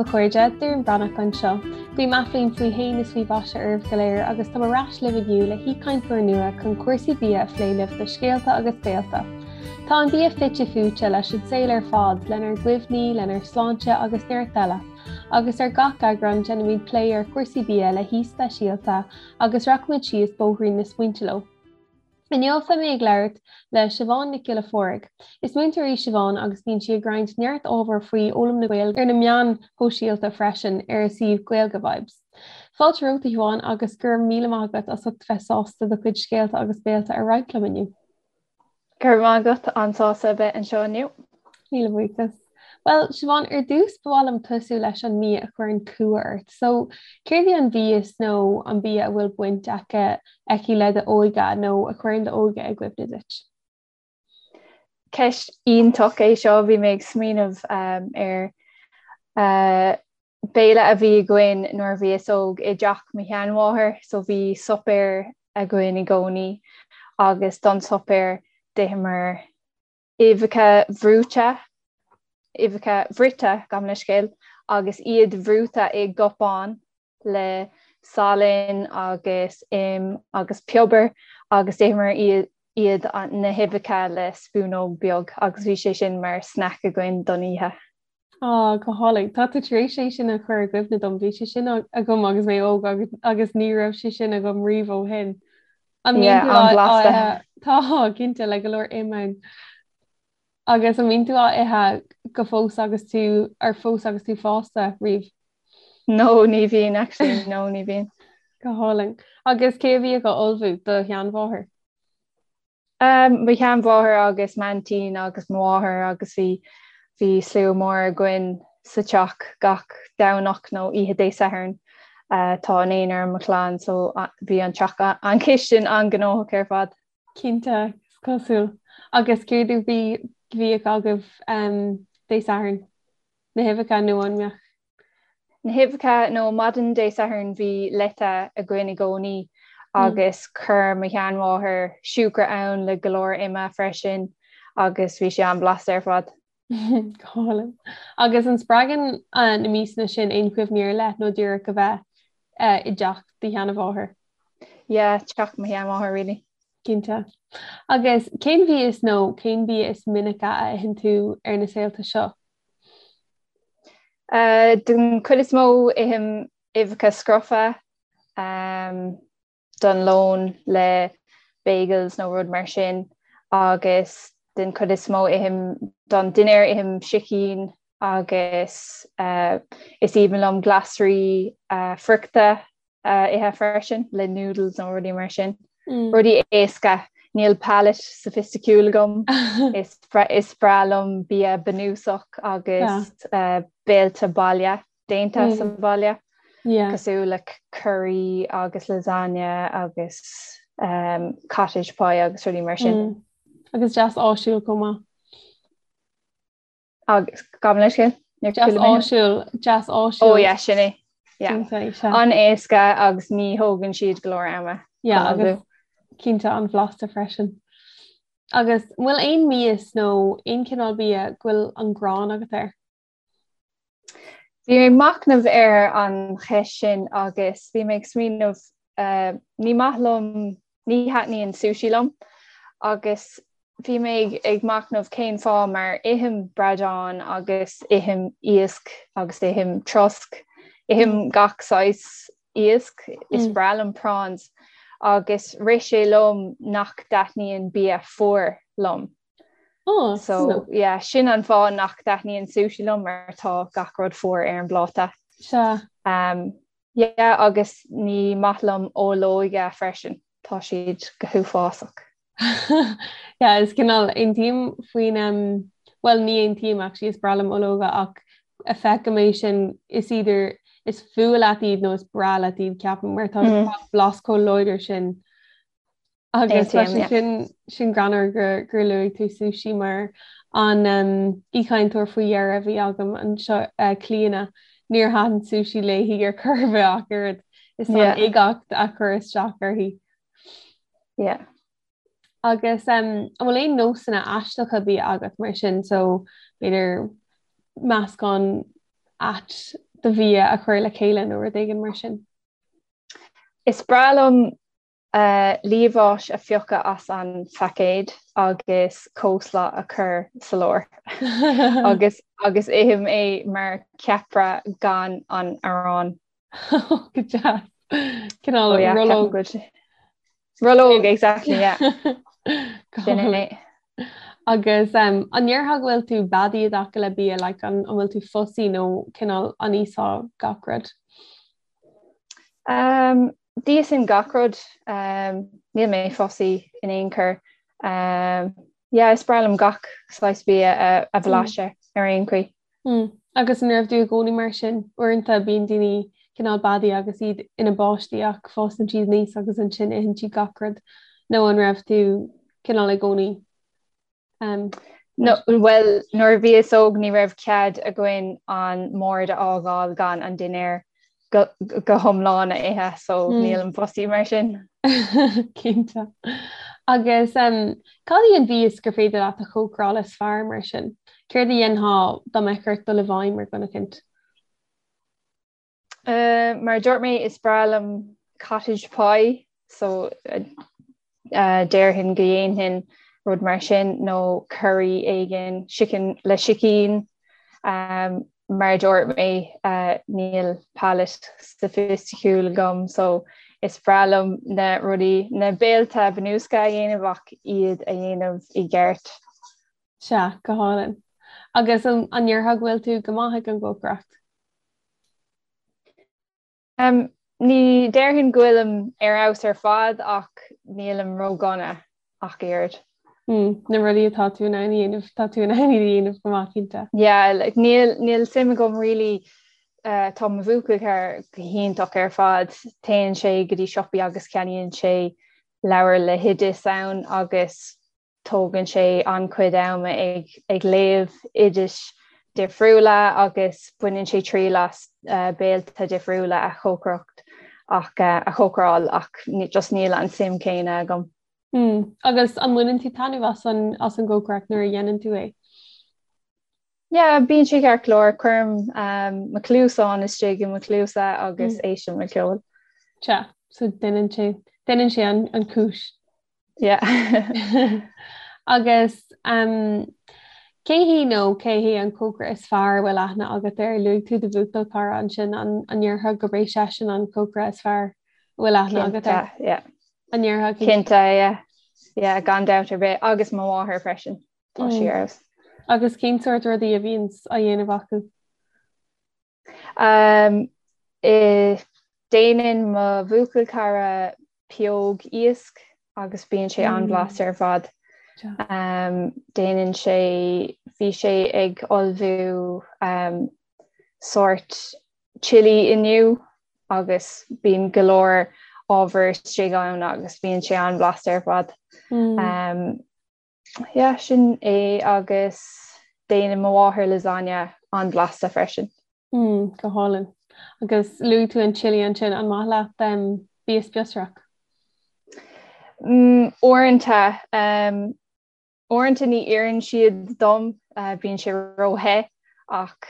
daoibh a chairde, Doireann Breathnach anseo. Guím athbhliain faoi shéan is faoi mhaise oraibh go léir agus tá mé ar ais libh inniu le haoichainteoir nua chun cúrsaí bia a phlé libh do Scéalta agus Béalta. Tá an bia fite fuaite leis an saol ar fad, lenár gcuimhní, lenár sláinte agus neart eile. Agus ar gach eagrán déanaimid plé ar chúrsaí bia le haoi speisialta agus rachaimid síos bóithrín na smaointe leo. Inniu beidh mé ag labhairt le Siobhán Nic Giolla Phádraig. Is múinteoir í Siobhán agus bíonn sí ag roinnt neart ábhair faoi fhoghlaim na Gaeilge ar na meáin shóisialta freisin ar a suíomh Gaeilge Vibes. Fáilte romhat a Shiobhán agus go raibh míle maith agat as ucht bheith sásta do chuid scéalta agus béalta a roinnt liom inniu. Go raibh maith agat, an-sásta a bheith anseo inniu. Míle buíochas. Bhuel, Siobhán, ar dtús ba mhaith liom tosú leis an mbia a chuireann cumha ort. So, céard í an mhias nó an bia a bhfuil baint aici, aici le d'óige nó a chuireann d'óige i gcuimhne duit? Ceist iontach é seo, bhí mé ag smaoineamh ar béile a bhí againn nuair a bhíos óg i dteach mo sheanmháthar, so bhí suipéar againn i gcónaí agus don suipéar d'itheamar uibheacha bhrúite, uibheacha bhruite, gabh mo leithscéal, agus iad bhrúite i gcupán le salann agus im agus piobar agus d'itheamar iad na huibheacha le spúnóg beag agus bhí sé sin mar snack againn don oíche. Á, go hálainn. Tá tú tar éis é sin a chur i gcuimhne dom. Bhí sé sin agam agus mé óg agus agus ní raibh sé sin agam riamh ó shin. An mbíonn tú á ithe? Tá, cinnte, le go leor im ann. Agus an mbíonn tú á ithe go fós agus tú ar fós agus tú fásta riamh? No, ní bhíonn actually, no, ní bhíonn. Go hálainn. Agus cé a bhíodh á ullmhú? Do sheanmháthair? Mo sheanmháthair agus m'aintín agus mo mháthair agus bhí bhí slua mór againn sa teach gach Domhnach nó oíche Dé Sathairn. Tá naonúr i mo chlann so bhí an teach an chistin an-ghnóthach ar fad. Cinnte, is cosúil. Agus céard a bhí bhíodh agaibh Dé Sathairn? Na huibheacha nó an mbeadh Na huibheacha nó maidin Dé Sathairn bhí leite againn i gcónaí agus chuir mo sheanmháthair siúcra ann le go leor ime freisin agus bhí sé an-bhlasta ar fad. Go hálainn. Agus an spreagann na miasanna sin aon chuimhní ar leith nó díreach a bheith i dteach do sheanmháthar? Yeah, teach mo sheanmháthar really. Cinnte. Agus cén mhias nó cén bia is minice a itheann tú ar na saolta seo? Den chuid is mó ithim uibheacha scrofa don lón le bagels nó rud mar sin agus den chuid is mó ithim don dinnéar ithim sicín agus is aoibhinn liom glasraí friochta a ithe freisin le noodles nó rudaí mar sin. Rudaí éasca. Níl palate soifisticiúil agam. Is is breá liom bia bunúsach agus béilte baile, déanta sa bhaile. Cosúil le curry agus lasagne agus cottage pie agus rudaí mar sin. Agus deas áisiúil chomh maith. Agus gabh mo leithscéal? Deas áisiúil, deas áisiúil. Ó yeah, sin é. Yeah. An-éasca agus ní thógann siad go leor ama. Yeah, agus cinnte an-bhlasta freisin. Agus an bhfuil aon mhias nó aon chineál bia go bhfuil an ghráin agat air? Bhí mé ag machnamh ar an cheist sin agus bhí mé ag smaoineamh ní maith liom, ní thaitníonn sushi liom agus bhí mé ag machnamh cén fáth mar ithim bradán agus ithim iasc agus ithim trosc, ithim gach saghas iasc, is breá liom prawns agus rith sé liom nach dtaitníonn bia fuar liom. Oh, So yeah, sin an fáth nach dtaitníonn sushi liom mar tá gach rud fuar ar an bpláta. Sea. Um, Yeah agus ní maith liom ológa freisin, tá siad go huafásach. Yeah, is cineál aontaím faoin um, bhuel ní aontaím actually, is breá liom ológa ach feicim é sin is either is fuath leat iad nó is breá leat iad ceapaim mar tá mm. blas chomh láidir sin Agus tá sé sin sin greannmhar gur gur luaigh tú sushi mar an aoichainteoir faoi dheireadh a bhí agam anseo Clíona, níor thaitin sushi léi ar chor ar bith ach oiread. Is an uigeacht a chuir isteach uirthi. Yeah. Agus an bhfuil aon nósanna aisteacha bia agat mar sin so b'fhéidir meascán ait do bhia a chur le chéile nó rud éigin mar sin? Is breá liom liamhás a phiocadh as an phaicéad agus coleslaw a chur sa lár agus agus ithim é mar ceapaire gan an arán. Go deas. Cineál oh, rollóg. Rollóg, exactly, yeah. Sin é. Agus um, an ndéarfá go bhfuil tú beadaí i dtaca le bia, like, an, an bhfuil tú fussy nó cineál an íosfá gach rud? Um, D'íosfainn gach rud. Um, níl mé fussy in aon chor. Um, yeah, is breá liom gach saghas bia a, a bhlaiseadh mm. ar aon chaoi. Mm. Agus an raibh tú i gcónaí mar sin? Uaireanta bíonn daoine cineál beadaí agus iad ina bpáistí ach fásann siad aníos agus ansin itheann siad gach rud. Nó an raibh tú cineál i gcónaí? Um, no, well, nuair a bhíos óg ní raibh cead againn an mbord a fhágáil gan an dinnéar go, go hiomlán a ithe, so mm. nílim fussy mar sin. Cinnte. Agus um, cad í an mhias gur féidir leat a chócaráil is fearr mar sin? Céard a dhéanfá dá mbeadh ort dul i bhfeidhm ar dhuine eicínt? Uh, mar a dúirt mé is breá liom cottage pie, so uh, uh, déarfainn go dhéanfainn rud mar sin nó curry éigin sicín le sicín. Um, mar a dúirt mé uh, níl palate soifisticiúil agam so is breá liom na rudaí na béilte bunúsacha a dhéanamh ach iad a dhéanamh i gceart. Sea, go hálainn. Agus an ndéarfá go bhfuil tú go maith ag an gcócaireacht? Um, ní déarfainn go bhfuilim ar fheabhas ar fad ach nílim ródhona ach oiread. Mm, na rudaí atá tú in ann a dhéanamh, tá tú in ann iad a dhéanamh go maith cinnte. Yeah, like, níl, níl suim agam really uh, tá mo bhuachaill cara go hiontach ar fad, téann sé go dtí siopaí agus ceannaíonn sé leabhar le hoidis ann agus Tógann sé an-chuid ama ag ag léamh oidis difriúla agus baineann sé triail as béilte difriúla a chócaireacht ach a chócaráil ach just níl an suim céanna agam. Mm. Agus an mbaineann tú taitneamh as an as an gcócaireacht nuair a dhéanann tú é? Yeah, bíonn sé ceart go leor. Cuirim um, mo chluasáin istigh i mo chluasa agus mm. éistim le ceol. Sea, so déanann sé déanann sé an, an cúis. Yeah. Agus um, cé hí nó cé hé an cócaire is fearr a bhfuil aithne agat air? Luaigh tú do bhuachaill cara ansin an an ndéarfá gurb é seisean an cócaire is fearr a bhfuil aithne agat air? Cinnte, yeah. An ndéarfá cinnte? Yeah. Yeah, gan dabht ar bith agus mo mháthair freisin. Tá sí mm. ar fheabhas. Agus cén sórt rudaí a bhíonn á dhéanamh acu? Um, déanann mo bhuachaill cara pióg iasc agus bíonn sé an-bhlasta ar fad. Um, déanann sé bhí sé ag ullmhú um, sórt chili inniu agus bíonn go leor ábhar istigh ann agus bíonn sé an-bhlasta ar fad. Mm. Um, Yeah, sin é agus déanann mo mháthair lasagna an-bhlasta freisin. Mm, go hálainn. Agus luaigh tú an chili ansin, an maith leat um, bia spíosrach? Mm, uaireanta, um, uaireanta ní oireann siad dom, uh, bíonn sé ró-the ach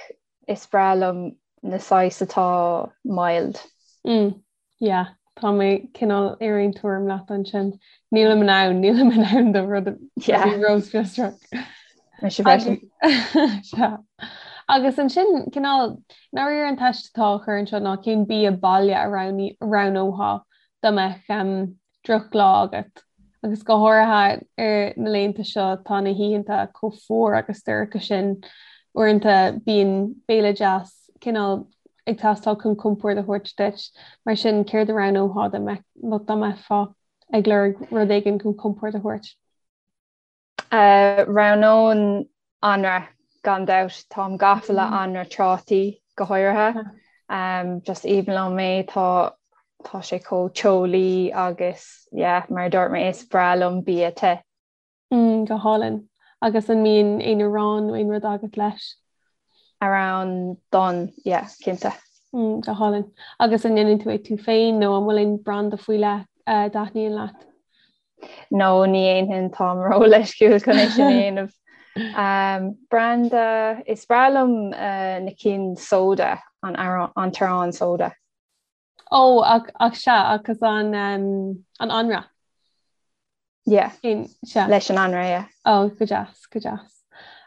is breá liom na saghas atá mild. Mm, yeah, tá mé cineál ar aon tuairim leat ansin. Nílim in ann, nílim in ann do rud ró-spíosrach. Mise freisin. Sea. Agus ansin cineál dáiríre an teist atá á chur anseo ná cén bia baile a roghnófá dá mbeadh um, drochlá agat. Agus go háirithe ar na laethanta seo tá na hoícheanta chomh fuar agus dorcha sin, uaireanta bíonn béile deas cineál ag teastáil chun compord a thabhairt duit. Mar sin céard a roghnófá dá mbeifeá ag lorg rud éigin chun compord a thabhairt? Roghnóinn anraith gan dabht. Táim gafa le anraith trátaí go háirithe. Just aoibhinn liom é, tá tá sé chomh teolaí agus yeah, mar a dúirt mé is breá liom bia te. Mm, go hálainn. Agus an mbíonn aon arán nó aon rud agat leis? Arán donn, yeah, cinnte. Mm, go hálainn. Agus an ndéanann tú é tú féin nó an bhfuil aon branda faoi leith a dtaitníonn leat? No, ní dhéanfainn, táim ró-leisciúil chun é sin a dhéanamh. Um, branda is breá liom uh, na cinn soda an an t-arán soda. Ó ach ach sea agus an um, an anraith. Yeah. Sea. Leis an anraith, yeah. Ó, go deas, go deas.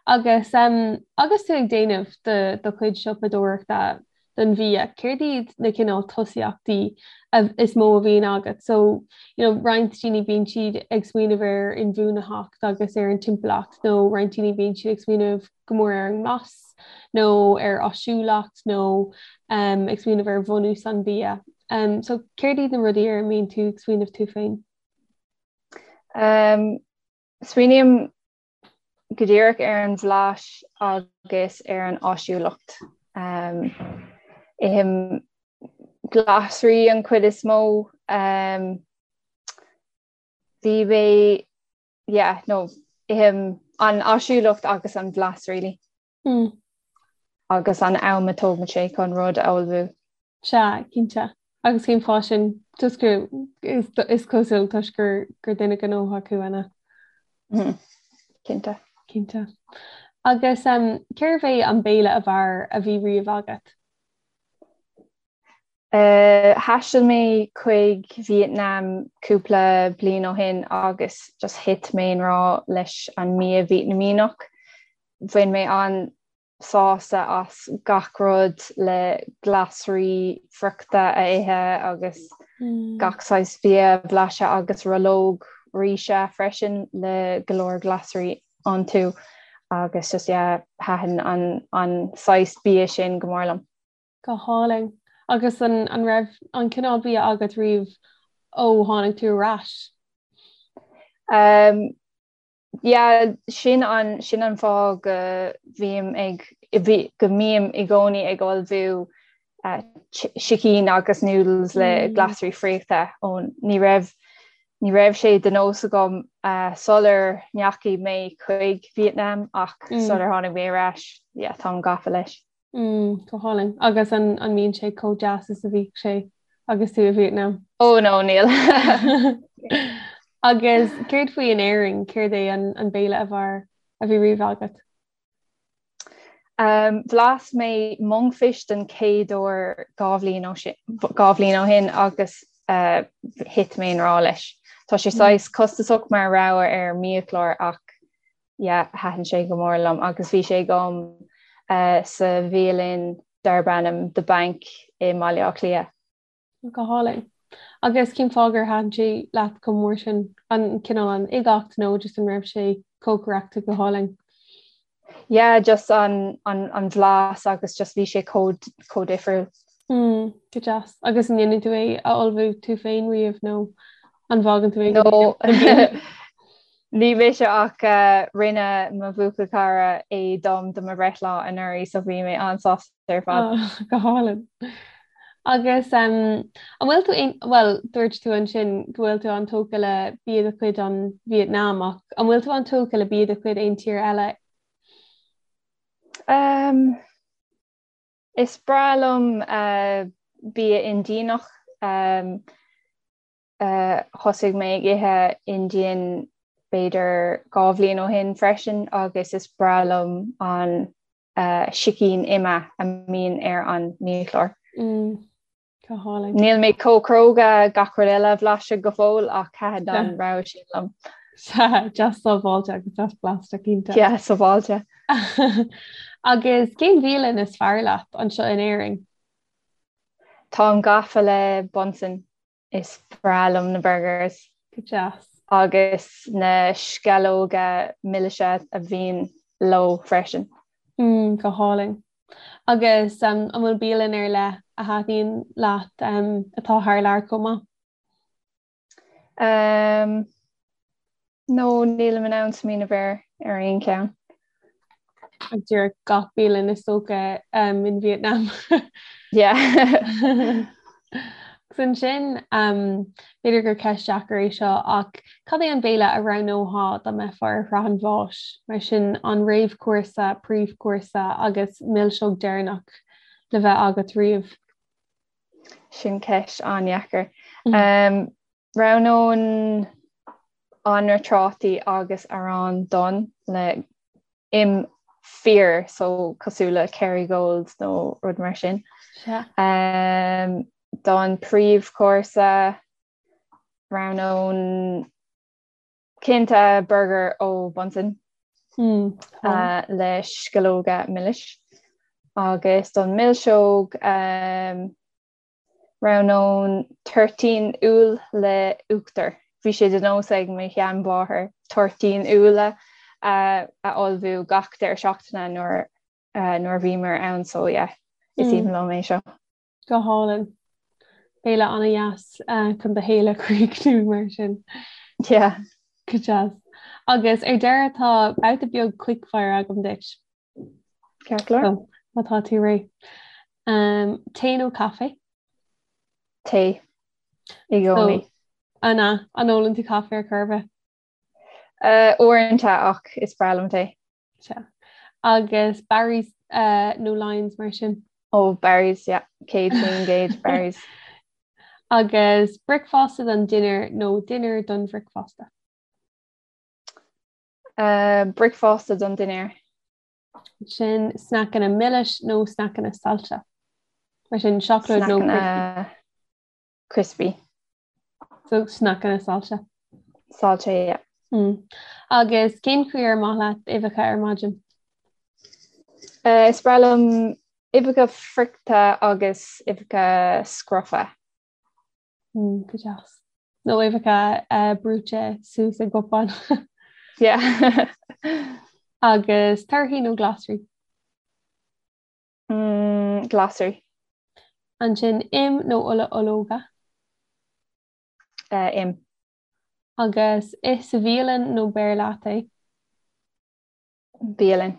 Agus um, agus tú ag déanamh do do chuid siopadóireachta don bhia, céard iad na cineál tosaíochtaí is mó a bhíonn agat? So, you know, roinnt daoine bíonn siad ag smaoineamh ar inbhuanaitheacht agus ar an timpeallacht nó roinnt daoine bíonn siad ag smaoineamh go mór ar an nglas nó ar áisiúlacht nó um, ag smaoineamh ar bhunús an bhia. Um, so céard iad na rudaí ar a mbíonn tú ag smaoineamh tú féin? Um, smaoiním go díreach ar an bhlas agus ar an áisiúlacht. Um, ithim glasraí an chuid is mó. Um, bhí mé yeah, no, ithim an áisiúlacht agus an bhlas really. Mm. Agus an am a tógann sé chun rud a ullmhú. Sea, cinnte. Agus cén fáth sin toisc gur is, is cosúil toisc gur, gur duine gnóthach thú, an ea? Mm. Cinnte. Cinnte. Agus um, cérbh é an béile ab fhearr a bhí riamh agat? Thaistil mé chuig Vietnam cúpla bliain ó shin agus just thit mé i ngrá leis an mbia Vítneamíneach. Bhain mé an-sásamh as gach rud le glasraí friochta a ithe agus gach saghas bia a bhlaiseadh agus rollóg ríse freisin le go leor glasraí iontu agus just yeah thaitin an an saghas bia sin go mór liom. Go hálainn. Agus an an raibh an cineál bia agat riamh ó tháinig tú ar ais? Um, yeah, sin an sin an fáth go bhím ag bhí, go mbím i gcónaí ag ullmhú uh, sicín agus noodles le mm. glasraí friochta ó ní raibh ní raibh sé de nós agam uh, sular ndeachaigh mé chuig Vietnam ach mm. sular tháinig mé ar ais, yeah, táim gafa leis. Mm, go hálainn. Agus an an mbíonn sé chomh deas is a bhíodh sé agus tú i Vietnam? Oh no, níl. Agus céard faoi in Éirinn, céard é an an béile ab fhearr a bhí riamh agat? Um, bhlas mé monkfish den chéad uair 2 bhliain ó sin 2 bhliain ó shin agus uh, thit mé i ngrá leis. Tá sé saghas costasach mar rogha ar mbiachlár ach yeah, thaitin sé go mór liom agus bhí sé agam uh, sa bhialann darb ainm The Bank i mBaile Átha Cliath. Go hálainn. Agus cén fáth gur thaitin sé leat chomh mór sin an cineál an uigeacht nó just an raibh sé cócaireachta go hálainn? Yeah, just an, an, an bhlas agus just bhí sé chomh, chomh difriúil. Mm, go deas. Agus an ndéanann tú é a ullmhú tú féin riamh nó an bhfágann tú é No. Ní mise ach uh, rinne mo bhuachaill cara é dom do mo bhreithlá anuraidh so bhí mé an-sásta ar fad. Oh, go hálainn. Agus um, an bhfuil tú aon well, dúirt tú ansin go bhfuil tú an-tógtha le bia de chuid an Vietnam ach an bhfuil tú an-tógtha le bia de chuid aon tír eile? Um, Is breá liom bia Indianach. Thosaigh mé ag ithe Indian b'fhéidir 2 bhliain ó shin freisin agus is breá liom an sicín ime a mbíonn ar an mbiachlár. Go hálainn. Níl mé chomh cróga gach rud eile a bhlaiseadh go fóill ach thaitin an rogha sin liom. Sea, deas sábháilte agus deas blasta cinnte. Yeah, sábháilte. Agus cén bhialann is fearr leat anseo in Éirinn? Táim gafa le Bunsen. Is breá liom na burgers. Go deas. Agus na sceallóga milse a bhíonn leo freisin. Mm, go hálainn. Agus an bhfuil bialann ar leith a thaitníonn leat atá thar lear chomh maith? Um, no, nílim in ann smaoineamh ar ar aon cheann. Ag díreach gach bialann is dócha um, in Vietnam. Yeah. Agus ansin, b'fhéidir gur ceist deacair é seo, ach cad é an béile a roghnófá dá mbeifeá ar shraith an bháis? Mar sin, an réamhchúrsa, príomhchúrsa agus milseog deireanach le bheith agat riamh? Sin ceist an-dheacair. Roghnóinn anraith trátaí agus arán donn le. Im fíor so cosúil le Kerrygold nó rud mar sin. Um, don príomhchúrsa roghnóinn cinnte burger ó Bunsen mm, uh, le sceallóga milis agus don milseog um, Roghnóinn toirtín úll le uachtar. Bhí sé de nós ag mo sheanmháthair toirtín úlla a ullmhú gach deireadh seachtaine nuair nuair a bhíomar ann so yeah, is aoibhinn liom é seo. Go hálainn. Béile an-dheas chun do shaol a chríochnú mar sin. Yeah. Go deas. Agus ar deireadh tá babhta beag quickfire agam duit. Ceart go leor. Má tá tú réidh. Um, tae nó caife? Tae. I gcónaí. An ea, an ólann tú caife ar chor ar bith? Uh, uaireanta ach is breá liom tae. Sea. Agus Barry's uh, nó Lyons mar sin? Ó, Barry's, yeah. 100% Barry's. Agus bricfeasta don dinnéar nó dinnéar don bhricfeasta? Uh, bricfeasta don dinnéar. Sin sneaiceanna milis nó sneaiceanna saillte. Mar sin seacláid nó crispy. Crispy. So sneaiceanna saillte. Saillte, yeah. Mm. Agus cén chaoi ar maith leat uibheacha ar maidin? Uh, is breá liom uibheacha friochta agus uibheacha scrofa. Mm, go deas. Nó uibheacha uh, brúite suas i gcupán. Yeah. Agus torthaí nó glasraí? Mm, glasraí. Ansin im nó ola ológa? Uh, im. Agus ith sa bhialann nó beir leat é? Bialann.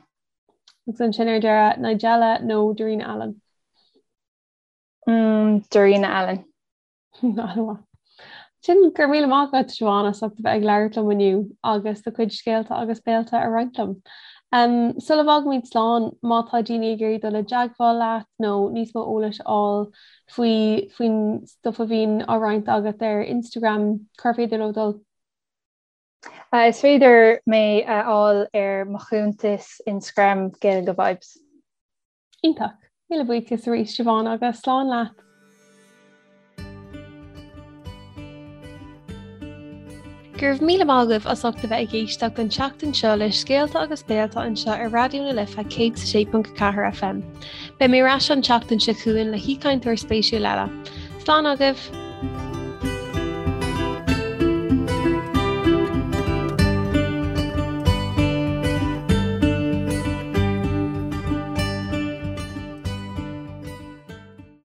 Agus ansin ar deireadh Nigella nó Darina Allen? Mm, Darina Allen. An-mhaith. Sin go raibh míle maith agat Siobhán as ucht a bheith ag labhairt liom inniu agus do chuid scéalta agus béilte a roinnt liom. Um, sula bhfágaimid slán, má tá daoine ag iarraidh dul i dteagmháil leat nó níos mó eolais a fháil faoi faoin stuff a bhíonn á roinnt agat ar Instagram, cár féidir leo dul? Uh, is féidir mé a fháil ar mo chuntas Instagram Gaeilge Vibes. Iontach. Míle buíochas arís Siobhán agus slán leat. Go raibh míle maith agaibh as ucht a bheith ag éisteacht an tseachtain seo le scéalta agus béalta anseo ar Raidió na Life 106.4 FM. Beidh mé ar ais an tseachtain seo chugainn le haoichainteoir spéisiúil eile. Slán agaibh!